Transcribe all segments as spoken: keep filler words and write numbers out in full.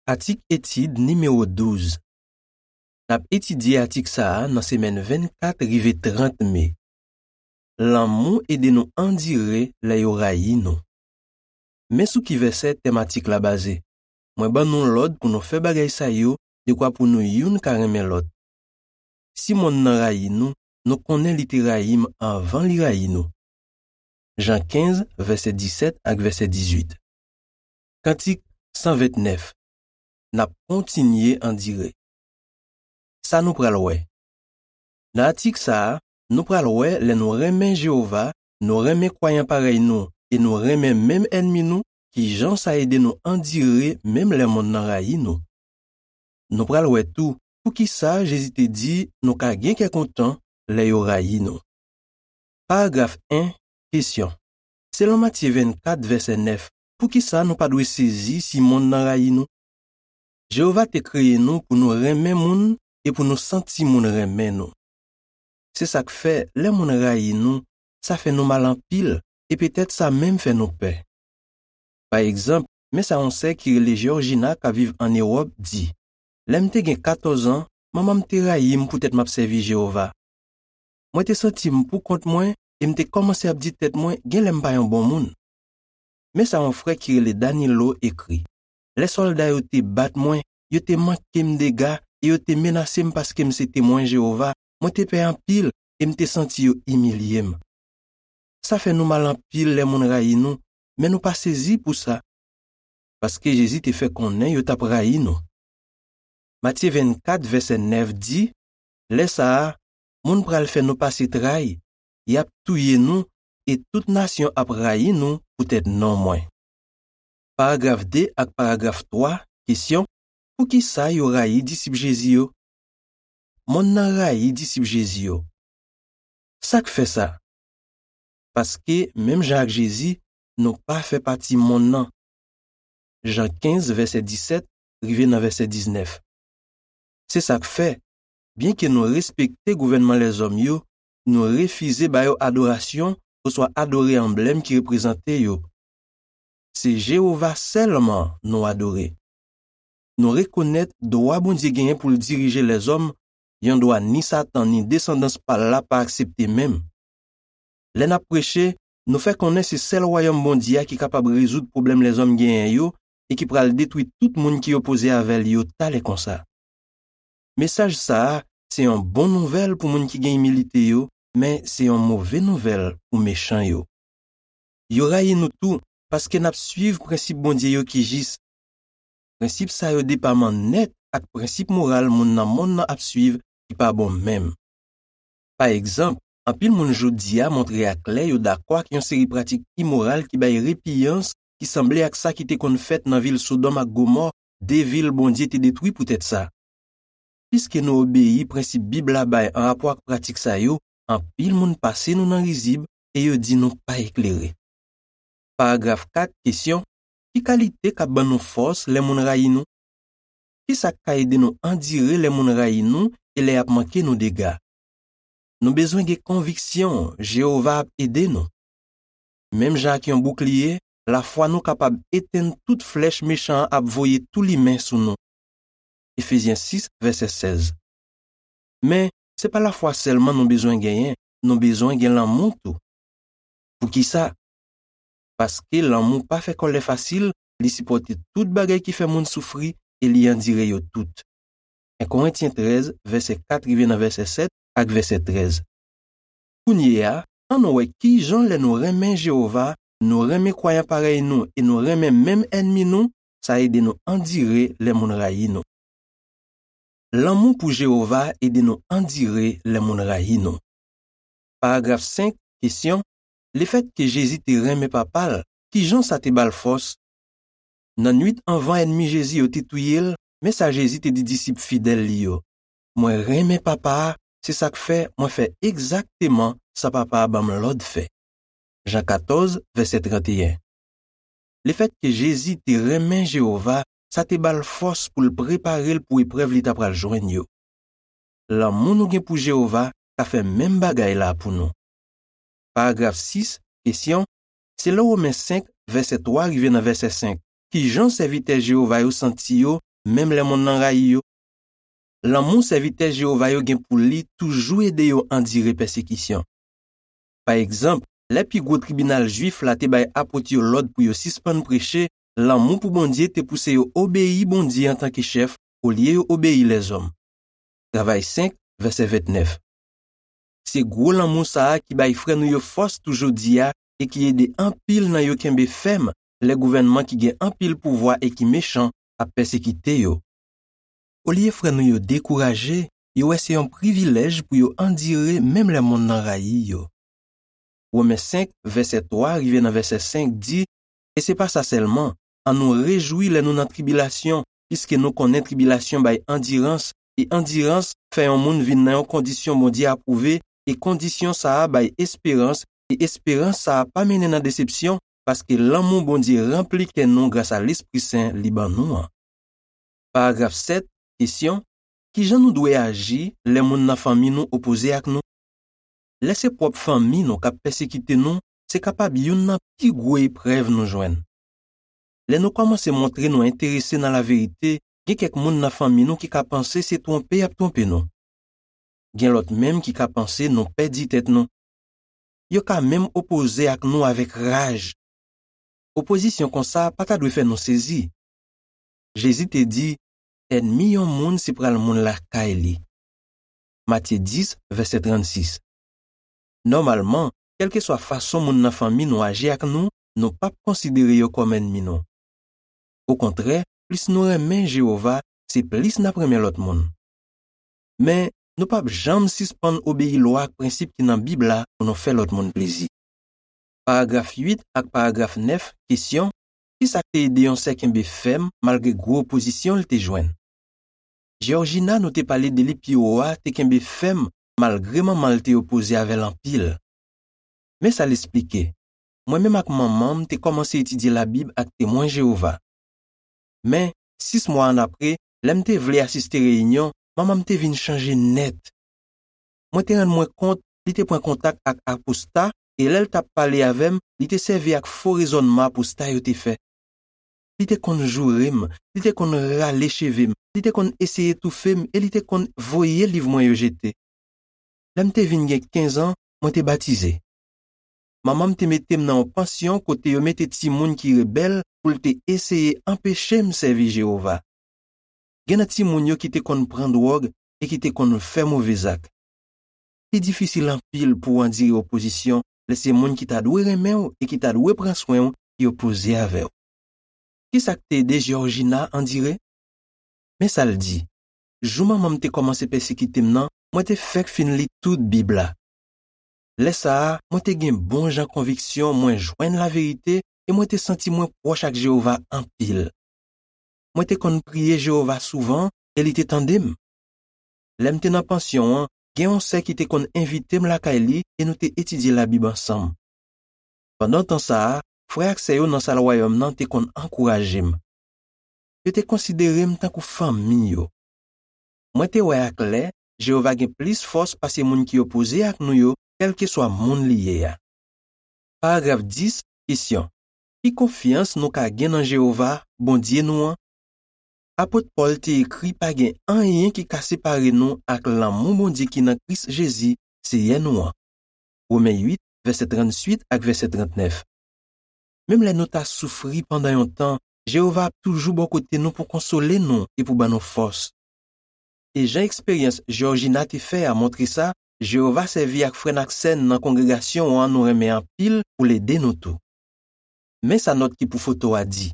Atik etid nimewo douz. N ap etidye atik sa a nan semèn vennkat rive trant me. Lanmou ede nou andire lè yo rayi nou. Men sou ki vèsè tèm atik la baze. Mwen ban nou lòd pou nou fè bagay sa yo dekwa pou nou youn ka renmen lòt. Si monn nan rayi nou, nou konnen li te rayi m anvan li rayi nou. Jan kenz, vèsè disèt ak vèsè dizuit. Kantik san vennèf. N ap kontinye andire. Sa nou pral wè. Nan atik sa a, nou pral wè lè nou renmen Jewova, nou renmen kwayan parèy nou e nou renmen menm ènmi nou, ki jan sa ede nou andire menm lè monn nan rayi nou. Nou pral wè tou poukisa Jezi te di nou ka gen kè kontan lè yo rayi nou. Paragraf en, kesyon. Selon Matye vennkat, vèsè nèf, poukisa nou pa dwe sezi si monn nan rayi nou? Jewova te kreye nou pou nou renmen moun e pou nou santi moun renmen nou. Se sa k fè, lè moun rayi nou, sa fè nou mal anpil, e petèt sa menm fè nou pè. Pa egzanp, men sa yon sè ki rele Georgina k ap viv ann Ewòp di, lè m te gen katòz an, manman m te rayi m poutèt m ap sèvi Jewova. Mwen te santi m poukont mwen e m te kòmanse ap di tèt mwen genlè m pa yon bon moun. Men sa yon frè ki rele Danilo ekri, lè sòlda yo te bat mwen, yo te manke m dega e yo te menase m paske m se Temwen Jewova, mwen te pè anpil e m te santi yo imilye m. Sa fè nou mal anpil lè moun rayi nou, men nou pa sezi pou sa, paske Jezi te fè konnen yo t ap rayi nou. Matye vennkat, vèsè nèf di, lè sa a, moun pral fè nou pase tray, y ap touye nou, e tout nasyon ap rayi nou poutèt non mwen. Paragraf de ak paragraf twa, kesyon, poukisa yo rayi disip Jezi yo? Monn nan rayi disip Jezi yo. Sa k fè sa? Paske, menm jan ak Jezi, nou pa fè pati monn nan. Jan kenz, vèsè disèt, rive nan vèsè diznèf. Se sa k fè, byenke nou respekte gouvènman lèzòm yo, nou refize ba yo adorasyon oswa adore anblèm ki reprezante yo. Se Jewova sèlman nou adore. Nou rekonèt dwa Bondye genyen pou l dirije lèzòm, yon dwa ni Satan ni desandans pa l la pa aksepte menm. Lè n ap preche, nou fè konnen se sèl Wayòm Bondye a ki kapab rezoud pwoblèm lèzòm genyen yo e ki pral detwi tout moun ki opoze avè l yo talè konsa. Mesaj sa a se yon bon nouvèl pou moun ki gen imilite yo, men se yon move nouvèl pou mechan yo. Yo rayi nou tou paske n ap suiv prensip Bondye yo ki jis. Prensip sa yo depaman nèt ak prensip moral moun nan monn nan ap suiv ki pa bon menm. Pa egzanp, anpil moun jodi a montre aklè yo dakò ak yon seri pratik imoral ki bay repiyans ki sanble ak sa ki te konn fèt nan vil Sodòm ak Gomò, de vil Bondye te detwi poutèt sa. Piske nou obeyi prensip Bib la bay anrapò ak pratik sa yo, anpil moun pase nou nan rizib e yo di nou pa eklere. Paragraf kat, kesyon, ki kalite k ap ban nou fòs lè moun rayi nou? Ki sa k ka ede nou andire lè moun rayi nou e lè y ap manke nou dega? Nou bezwen gen konviksyon Jewova ap ede nou. Menm jan ak yon boukliye, lafwa nou kapab etenn tout flèch mechan an ap voye toulimen sou nou. Efezyen sis, vèsè sèz. Men, se pa lafwa sèlman nou bezwen genyen, nou bezwen gen lanmou tou. Poukisa? Paske lanmou pa fè kòlè fasil, li sipòte tout bagay ki fè moun soufri e li andire yo tout. En Korentyen trèz, vèsè kat rive nan vèsè sèt ak vèsè trèz. Kounye a, ann wè ki jan lè nou renmen Jewova, nou renmen kwayan parèy nou e nou renmen menm ènmi nou, sa ede nou andire lè moun rayi nou. Lanmou pou Jewova ede nou andire lè moun rayi nou. Paragraf senk, kesyon, lefètke Jezi te renmen Papa l, ki jan sa te ba l fòs? Nan nuit anvan ènmi Jezi yo te touye l, men sa Jezi te di disip fidèl li yo, mwen renmen Papa a, se sa k fè mwen fè egzakteman sa Papa a ban m lòd fè. Jan katòz, vèsè tranteyen. Lefètke Jezi te renmen Jewova, sa te ba l fòs pou l prepare l pou eprèv li t apral jwenn yo. Lanmou nou gen pou Jewova ka fè menm bagay la pou nou. Paragraf sis, kesyon, selon Women senk, vèsè twa rive nan vèsè senk, ki jan sèvitè Jewova yo santi yo menm lè monn nan rayi yo? Lanmou sèvitè Jewova yo gen pou li toujou ede yo andire pèsekisyon. Pa egzanp, lè pi gwo tribinal jwif la te bay apot yo lòd pou yo sispann preche, lanmou pou Bondye te pouse yo obeyi Bondye antanke chèf olye yo obeyi lèzòm. Travay senk, vèsè vennèf. Se gwo lanmou sa a ki bay frè nou yo fòs tou jodi a e ki ede anpil nan yo kenbe fèm lè gouvènman ki gen anpil pouvwa e ki mechan ap pèsekite yo. Olye frè nou yo dekouraje, yo wè se yon privilèj pou yo andire menm lè monn nan rayi yo. Women senk, vèsè twa rive nan vèsè senk di, e se pa sa sèlman, annou rejwi lè nou nan tribilasyon, piske nou konnen tribilasyon bay andirans, e andirans fè yon moun vin nan yon kondisyon Bondye apwouve, e kondisyon sa a bay esperans, e esperans sa a pa mennen nan desepsyon, paske lanmou Bondye ranpli kè nou gras a Lespri Sen li ban nou an. Paragraf sèt, kesyon, ki jan nou dwe aji lè moun nan fanmi nou opoze ak nou? Lè se pwòp fanmi nou k ap pèsekite nou, se kapab youn nan pi gwo eprèv nou jwenn. Lè nou kòmanse montre nou enterese nan laverite, gen kèk moun nan fanmi nou ki ka panse se twonpe y ap twonpe nou. Gen lòt menm ki ka panse nou pèdi tèt nou. Yo ka menm opoze ak nou avèk raj. Opozisyon konsa pa ta dwe fè nou sezi. Jezi te di, ènmi yon moun se pral moun lakay li. Matye dis, vèsè trannsis. Nòmalman, kèlkeswa fason moun nan fanmi nou aji ak nou, nou p ap konsidere yo kòm ènmi nou. Okontrè, plis nou renmen Jewova, se plis n ap renmen lòt moun. Men, nou p ap janm sispann obeyi lwa ak prensip ki nan Bib la pou nou fè lòt moun plezi. Paragraf uit ak paragraf nèf, kesyon, ki sa k te ede yon sè kenbe fèm malgre gwo opozisyon l te jwenn? Georgina, nou te pale de li pi wo a, te kenbe fèm malgre manman l te opoze avè l anpil. Men sa l esplike, mwen menm ak manman m te kòmanse etidye Labib ak Temwen Jewova. Men, sis mwa annapre, lè m te vle asiste reyinyon, manman m te vin chanje nèt. Mwen te rann mwen kont li te pran kontak ak aposta, e lè l t ap pale avè m, li te sèvi ak fo rezònman aposta yo te fè. Li te konn joure m, li te konn rale cheve m, li te konn eseye toufe m e li te konn voye liv mwen yo jete. Lè m te vin gen kenz an, mwen te batize. Manman m te mete m nan yon pansyon kote yo mete timoun ki rebèl pou l te eseye anpeche m sèvi Jewova. Gen nan timoun yo ki te konn pran dwòg e ki te konn fè move zak. Li difisil anpil pou w andire opozisyon lè se moun ki ta dwe renmen w e ki ta dwe pran swen w ki opoze avè w. Ki sa k te ede Georgina andire? Men sa l di, jou manman m te kòmanse pèsekite m nan, mwen te fèk fin li tout Bib la. Lè sa a, mwen te gen bon jan konviksyon mwen jwenn laverite e mwen te santi mwen pwòch ak Jewova anpil. Mwen te konn priye Jewova souvan e li te tande m. Lè m te nan pansyon an, gen yon sè ki te konn envite m lakay li e nou te etidye Labib ansanm. Pandan tan sa a, frè ak sè yo nan Sal Wayòm nan te konn ankouraje m. Yo te konsidere m tankou fanmi yo. Mwen te wè aklè, Jewova gen plis fòs pase moun ki opoze ak nou yo, kèlkeswa moun li ye a. Paragraf dis, kesyon, ki konfyans nou ka gen nan Jewova, Bondye nou an? Apot Pòl te ekri pa gen anyen ki ka separe nou ak lanmou Bondye ki nan Kris Jezi, Seyè nou an. Women uit, vèsè trannwit ak vèsè trannèf. Menm lè nou ta soufri pandan yon tan, Jewova ap toujou bò kote nou pou konsole nou e pou ban nou fòs. E jan eksperyans Georgina te fè a montre sa, Jewova sèvi ak frè n ak sè n nan kongregasyon an nou renmen anpil pou l ede nou tou. Men sa nòt ki pou foto a di,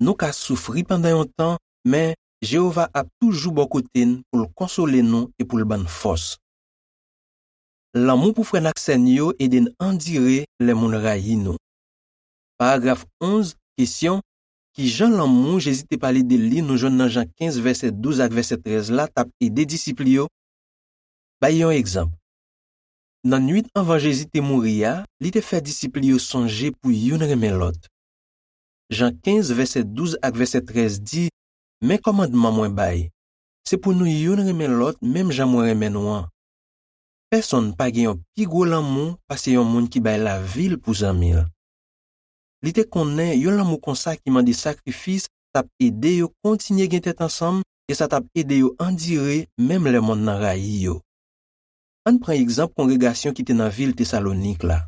nou ka soufri pandan yon tan, men Jewova ap toujou bò kote n pou l konsole nou e pou l ban n fòs. Lanmou pou frè n ak sè n yo ede n andire lè moun rayi nou. Paragraf onz, kesyon, ki jan lanmou Jezi te pale de li nou jwenn nan Jan kenz vèsè douz ak vèsè trèz la t ap ede disip li yo? Bay yon egzanp. Nan nwit anvan Jezi te mouri a, li te fè disip li yo sonje pou youn renmen lòt. Jan kenz vèsè douz ak vèsè trèz di, men kòmandman mwen bay, se pou nou youn renmen lòt menm jan mwen renmen nou an. Pèsonn pa gen yon pi gwo lanmou pase yon moun ki bay lavi l pou zanmi l. Li te konnen yon lanmou konsa ki mande sakrifis t ap ede yo kontinye gen tèt ansanm e sa t ap ede yo andire menm lè monn nan rayi yo. Ann pran egzanp kongregasyon ki te nan vil Tesalonik la.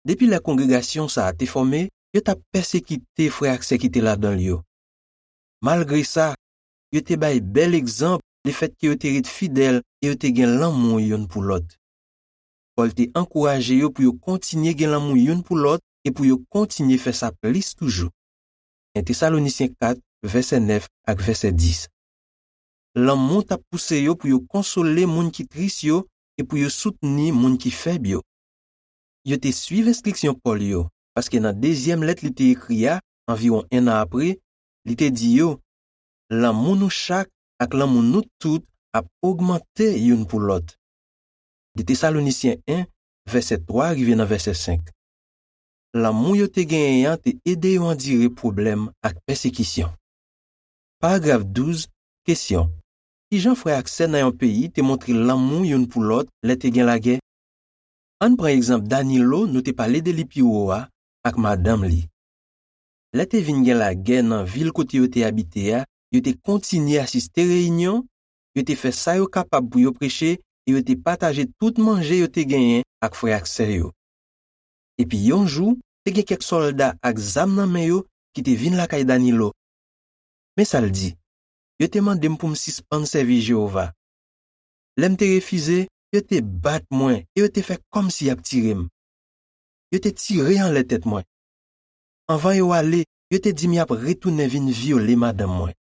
Depi lè kongregasyon sa a te fòme, yo t ap pèsekite frè ak sè ki te ladan l yo. Malgre sa, yo te bay bèl egzanp lefètke yo te ret fidèl e yo te gen lanmou youn pou lòt. Pòl te ankouraje yo pou yo kontinye gen lanmou youn pou lòt e pou yo kontinye fè sa plis toujou. En Tesalonisyen kat, vèsè nèf ak vèsè dis. Lanmou t ap pouse yo pou yo konsole moun ki tris yo e pou yo soutni moun ki fèb yo. Yo te suiv enstriksyon Pòl yo, paske nan dezyèm lèt li te ekri a, anviwon enn an apre, li te di yo, lanmou nou chak ak lanmou nou tout ap ogmante youn pou lòt. De Tesalonisyen en, vèsè twa rive nan vèsè senk. Lanmou yo te genyen an te ede yo andire pwoblèm ak pèsekisyon. Paragraf douz, kesyon. Kijan frè ak sè nan yon peyi te montre lanmou youn pou lòt lè te gen lagè? Ann pran egzanp Danilo nou te pale de li pi wo a ak madanm li. Lè te vin gen lagè nan vil kote yo te abite a, yo te kontinye asiste reyinyon, yo te fè sa yo kapab pou yo preche e yo te pataje tout manje yo te genyen ak frè ak sè yo. Epi yon jou, te gen kèk sòlda ak zam nan men yo ki te vin lakay Danilo. Men sa l di, yo te mande m pou m sispann sèvi Jewova. Lè m te refize, yo te bat mwen e yo te fè kòmsi y ap tire m. Yo te tire anlè tèt mwen. Anvan yo ale, yo te di m y ap retounen vin vyole madanm mwen.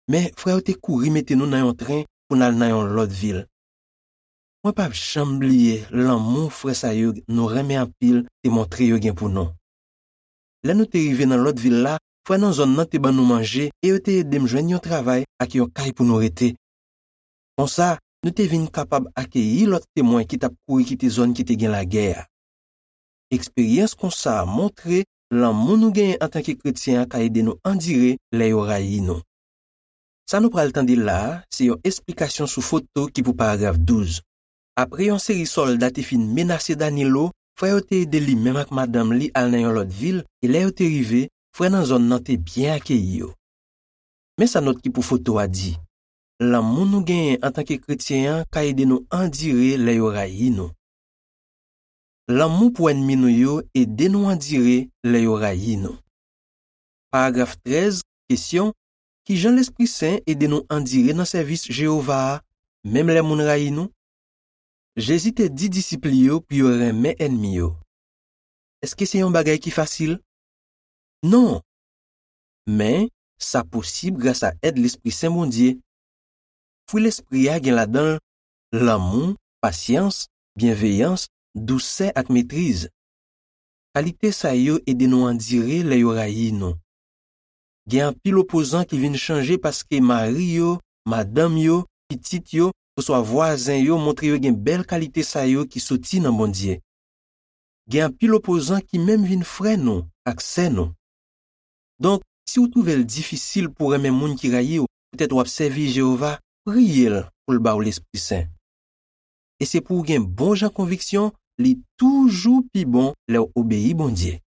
Men frè yo te kouri mete nou nan yon tren pou n al nan yon lòt vil. Mwen p ap janm bliye lanmou frè sa yo nou renmen anpil te montre yo gen pou nou. Lè nou te rive nan lòt vil la, frè nan zòn nan te ban nou manje e yo te ede m jwenn yon travay ak yon kay pou nou rete. Konsa, nou te vin kapab akeyi lòt Temwen ki t ap kouri kite zòn ki te gen lagè a. Eksperyans konsa a montre lanmou nou genyen antanke kretyen an ka ede nou andire lè yo rayi nou. Sa nou pral tande la a se yon esplikasyon sou foto ki pou paragraf douz. Apre yon seri sòlda te fin menase Danilo, frè yo te ede li menm ak madanm li al nan yon lòt vil, e lè yo te rive, frè nan zòn nan te byen akeyi yo. Men sa nòt ki pou foto a di, lanmou nou genyen antanke kretyen an ka ede nou andire lè yo rayi nou. Lanmou pou ènmi nou yo ede nou andire lè yo rayi nou. Paragraf trèz, kesyon, kijan Lespri Sen ede nou andire nan sèvis Jewova a, menm lè moun rayi nou? Jezi te di disip li yo pou yo renmen ènmi yo. Èske se yon bagay ki fasil? Non! Men, sa posib gras a èd Lespri Sen Bondye. Fwi Lespri a gen ladan l lanmou, pasyans, byenveyans, dousè ak metriz. Kalite sa yo ede nou andire lè yo rayi nou. Gen anpil opozan ki vin chanje paske mari yo, madanm yo, pitit yo, oswa vwazen yo montre yo gen bèl kalite sa yo ki soti nan Bondye. Gen anpil opozan ki menm vin frè nou ak sè nou. Donk, si w twouve l difisil pou w renmen moun ki rayi w, poutèt w ap sèvi Jewova, priye l pou l ba w Lespri Sen. E se pou w gen bon jan konviksyon, li toujou pi bon lè w obeyi Bondye.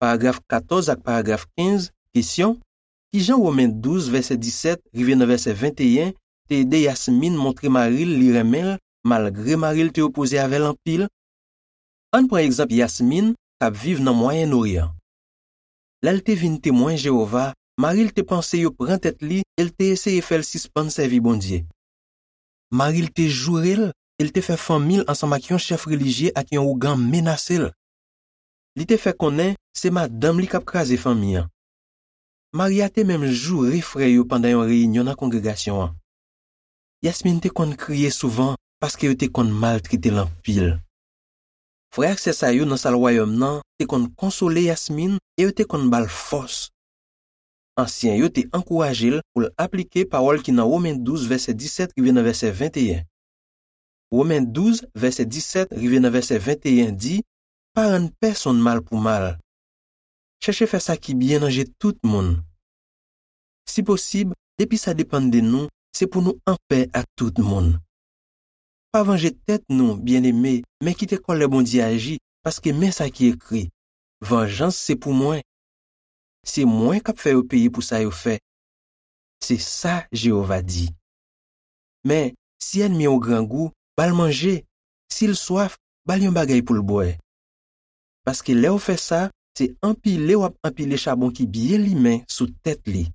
Paragraf katòz ak paragraf kenz, kesyon, kijan Women douz, vèsè disèt rive nan vèsè venteyen te ede Yasmin montre mari l li renmen l, malgre mari l te opoze avè l anpil? Ann pran egzanp Yasmin, k ap viv nan Mwayen Oryan. Lè l te vin Temwen Jewova, mari l te panse yo pran tèt li e l te eseye fè l sispann sèvi Bondye. Mari l te joure l e l te fè fanmi l ansanm ak yon chèf relijye ak yon ougan menase l. Li te fè konnen se madanm li k ap kraze fanmi an. Mari a te menm joure frè yo pandan yon reyinyon nan kongregasyon an. Yasmin te konn kriye souvan paske yo te konn maltrete l anpil. Frè ak sè sa yo nan sal wayòm nan te konn konsole Yasmin e yo te konn ba l fòs. Ansyen yo te ankouraje l pou l aplike pawòl ki nan Women douz, vèsè disèt rive nan vèsè venteyen. Women douz, vèsè disèt rive nan vèsè venteyen di, pa rann pèsonn mal pou mal. Chèche fè sa ki byen nan je tout moun. Si posib, depi sa depann de nou, se pou nou anpè ak tout moun. Pa vanje tèt nou, byeneme, men kite kòlè Bondye aji, paske men sa ki ekri, vanjans se pou mwen. se mwen k ap fè yo peye pou sa yo fè. Se sa Jewova di. Men, si ènmi w grangou, ba l manje. Si l swaf, ba l yon bagay pou l bwè. Paske lè w fè sa, se anpile w ap anpile chabon ki byen limen sou tèt li.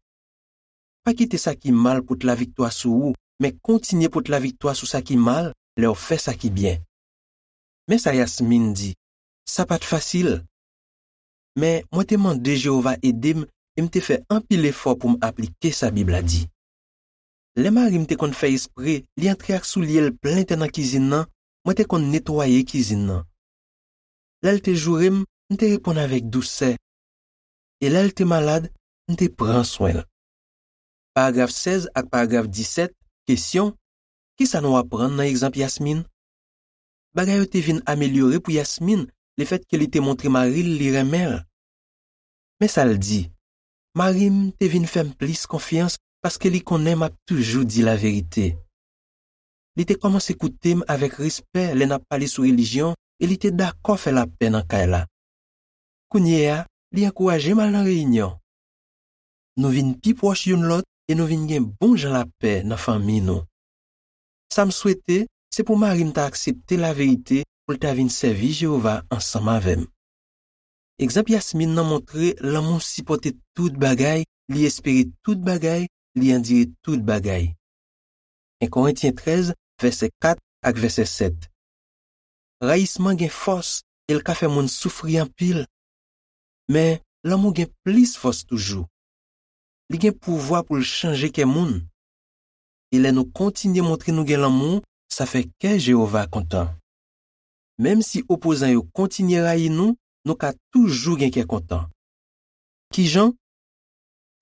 Pa kite sa ki mal pot laviktwa sou ou, men kontinye pot laviktwa sou sa ki mal lè w fè sa ki byen. Men sa Yasmin di, sa pa t fasil. Men mwen te mande Jewova ede m e m te fè anpil efò pou m aplike sa Bib la di. Lè mari m te konn fè espre li antre ak soulye l plen tè nan kizin nan, mwen te konn netwaye kizin nan. Lè l te joure m, m te reponn avèk dousè. E lè l te malad, m te pran swen l. Paragraf sèz ak paragraf disèt, kesyon, ki sa nou aprann nan egzanp Yasmin? Bagay yo te vin amelyore pou Yasmin lefètke li te montre mari l li renmen l. Men sa l di, mari m te vin fè m plis konfyans paske li konnen m ap toujou di laverite. Li te kòmanse koute m avèk respè lè n ap pale sou relijyon e li te dakò fè lapè nan kay la. Kounye a, li ankouraje m al nan reyinyon. Nou vin pi pwòch youn lòt e nou vin gen bon jan lapè nan fanmi nou. Sa m swete, se pou mari m ta aksepte laverite pou l ta vin sèvi Jewova ansanm avè m. Egzanp Yasmin nan montre lanmou sipòte tout bagay, li espere tout bagay, li andire tout bagay. En Korentyen trèz, vèsè kat ak vèsè sèt. Rayisman gen fòs e l ka fè moun soufri anpil. Men, lanmou gen plis fòs toujou. Li gen pouvwa pou l chanje kè moun. E lè nou kontinye montre nou gen lanmou, sa fè kè Jewova kontan. Menm si opozan yo kontinye rayi nou, nou ka toujou gen kè kontan. Ki jan?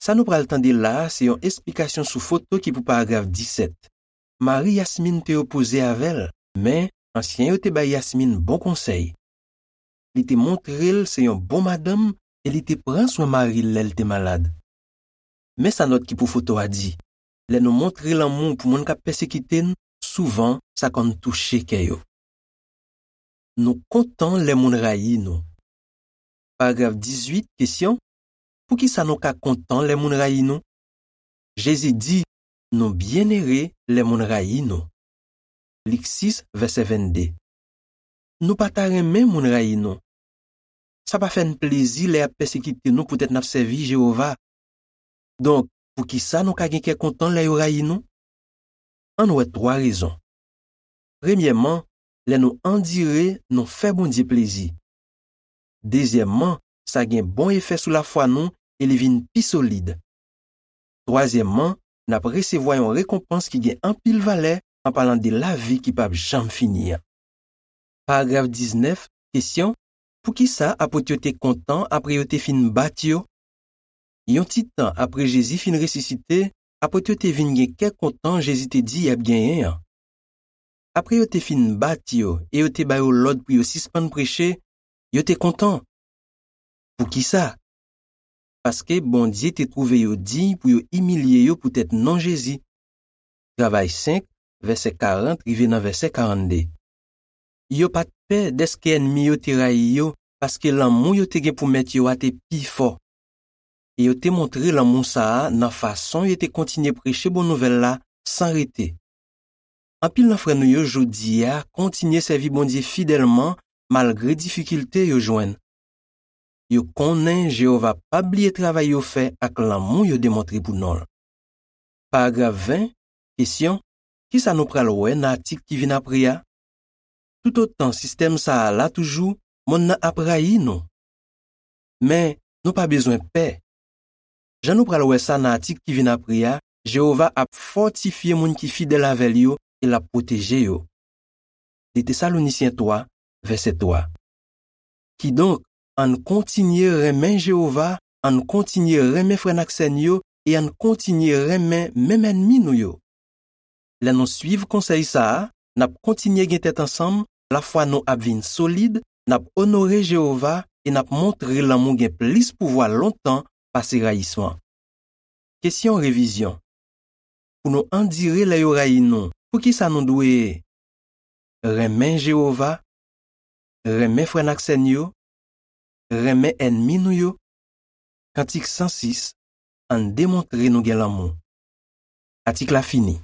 Sa nou pral tande la a se yon esplikasyon sou foto ki pou paragraf disèt. Mari Yasmin te opoze avè l, men ansyen yo te bay Yasmin bon konsèy. Li te montre l se yon bon madanm e li te pran swen mari l lè l te malad. Men sa nòt ki pou foto a di, lè nou montre lanmou pou moun k ap pèsekite n, souvan sa konn touche kè yo. Nou kontan lè moun rayi nou. Paragraf dizuit, kesyon, poukisa nou ka kontan lè moun rayi nou? Jezi di, nou byennere lè moun rayi nou. Lik sis, vèsè vennde. Nou pa ta renmen moun rayi nou. Sa pa fè n plezi lè y ap pèsekite nou poutèt n ap sèvi Jewova. Donk, poukisa nou ka gen kè kontan lè yo rayi nou? Ann wè twa rezon. Premyèman, lè nou andire, nou fè Bondye plezi. Dezyèmman, sa gen bon efè sou lafwa nou e li vin pi solid. Twazyèmman, n ap resevwa yon rekonpans ki gen anpil valè an palan de lavi ki p ap janm fini an. Paragraf diznèf, kesyon, poukisa apot yo te kontan apre yo te fin bat yo? Yon ti tan apre Jezi fin resisite, apot yo te vin gen kè kontan Jezi te di y ap genyen an. Apre yo te fin bat yo e yo te ba yo lòd pou yo sispann preche, yo te kontan. Poukisa? Paske Bondye te twouve yo diy pou yo imilye yo poutèt non Jezi. Travay senk, vèsè karant rive nan vèsè karannde. Yo pa t pè dèske ènmi yo te rayi yo, paske lanmou yo te gen pou Mèt yo a te pi fò. E yo te montre lanmou sa a nan fason yo te kontinye preche bon nouvèl la san rete. Anpil nan frè nou yo jodi a kontinye sèvi Bondye fidèlman malgre difikilte yo jwenn. Yo konnen Jewova p ap bliye travay yo fè ak lanmou yo demontre pou non l. Paragraf ven, kesyon, ki sa nou pral wè nan atik ki vin apre a? Toutotan sistèm sa a la toujou, monn nan ap rayi nou. Men, nou pa bezwen pè. Jan nou pral wè sa nan atik ki vin apre a, Jewova ap fòtifye moun ki fidèl avè l yo e l ap pwoteje yo. De Tesalonisyen twa, vèsè twa. Kidonk, ann kontinye renmen Jewova, ann kontinye renmen frè n ak sè n yo e ann kontinye renmen menm ènmi nou yo. Lè nou suiv konsèy sa a, n ap kontinye gen tèt ansanm, lafwa nou ap vin solid, n ap onore Jewova e n ap montre lanmou gen plis pouvwa lontan pase rayisman. Kesyon revizyon. Pou nou andire lè yo rayi nou, poukisa nou dwe renmen Jewova, renmen frè n ak sè n yo, renmen ènmi nou yo? Kantik san sis, Ann demontre nou gen lanmou. Atik la fini.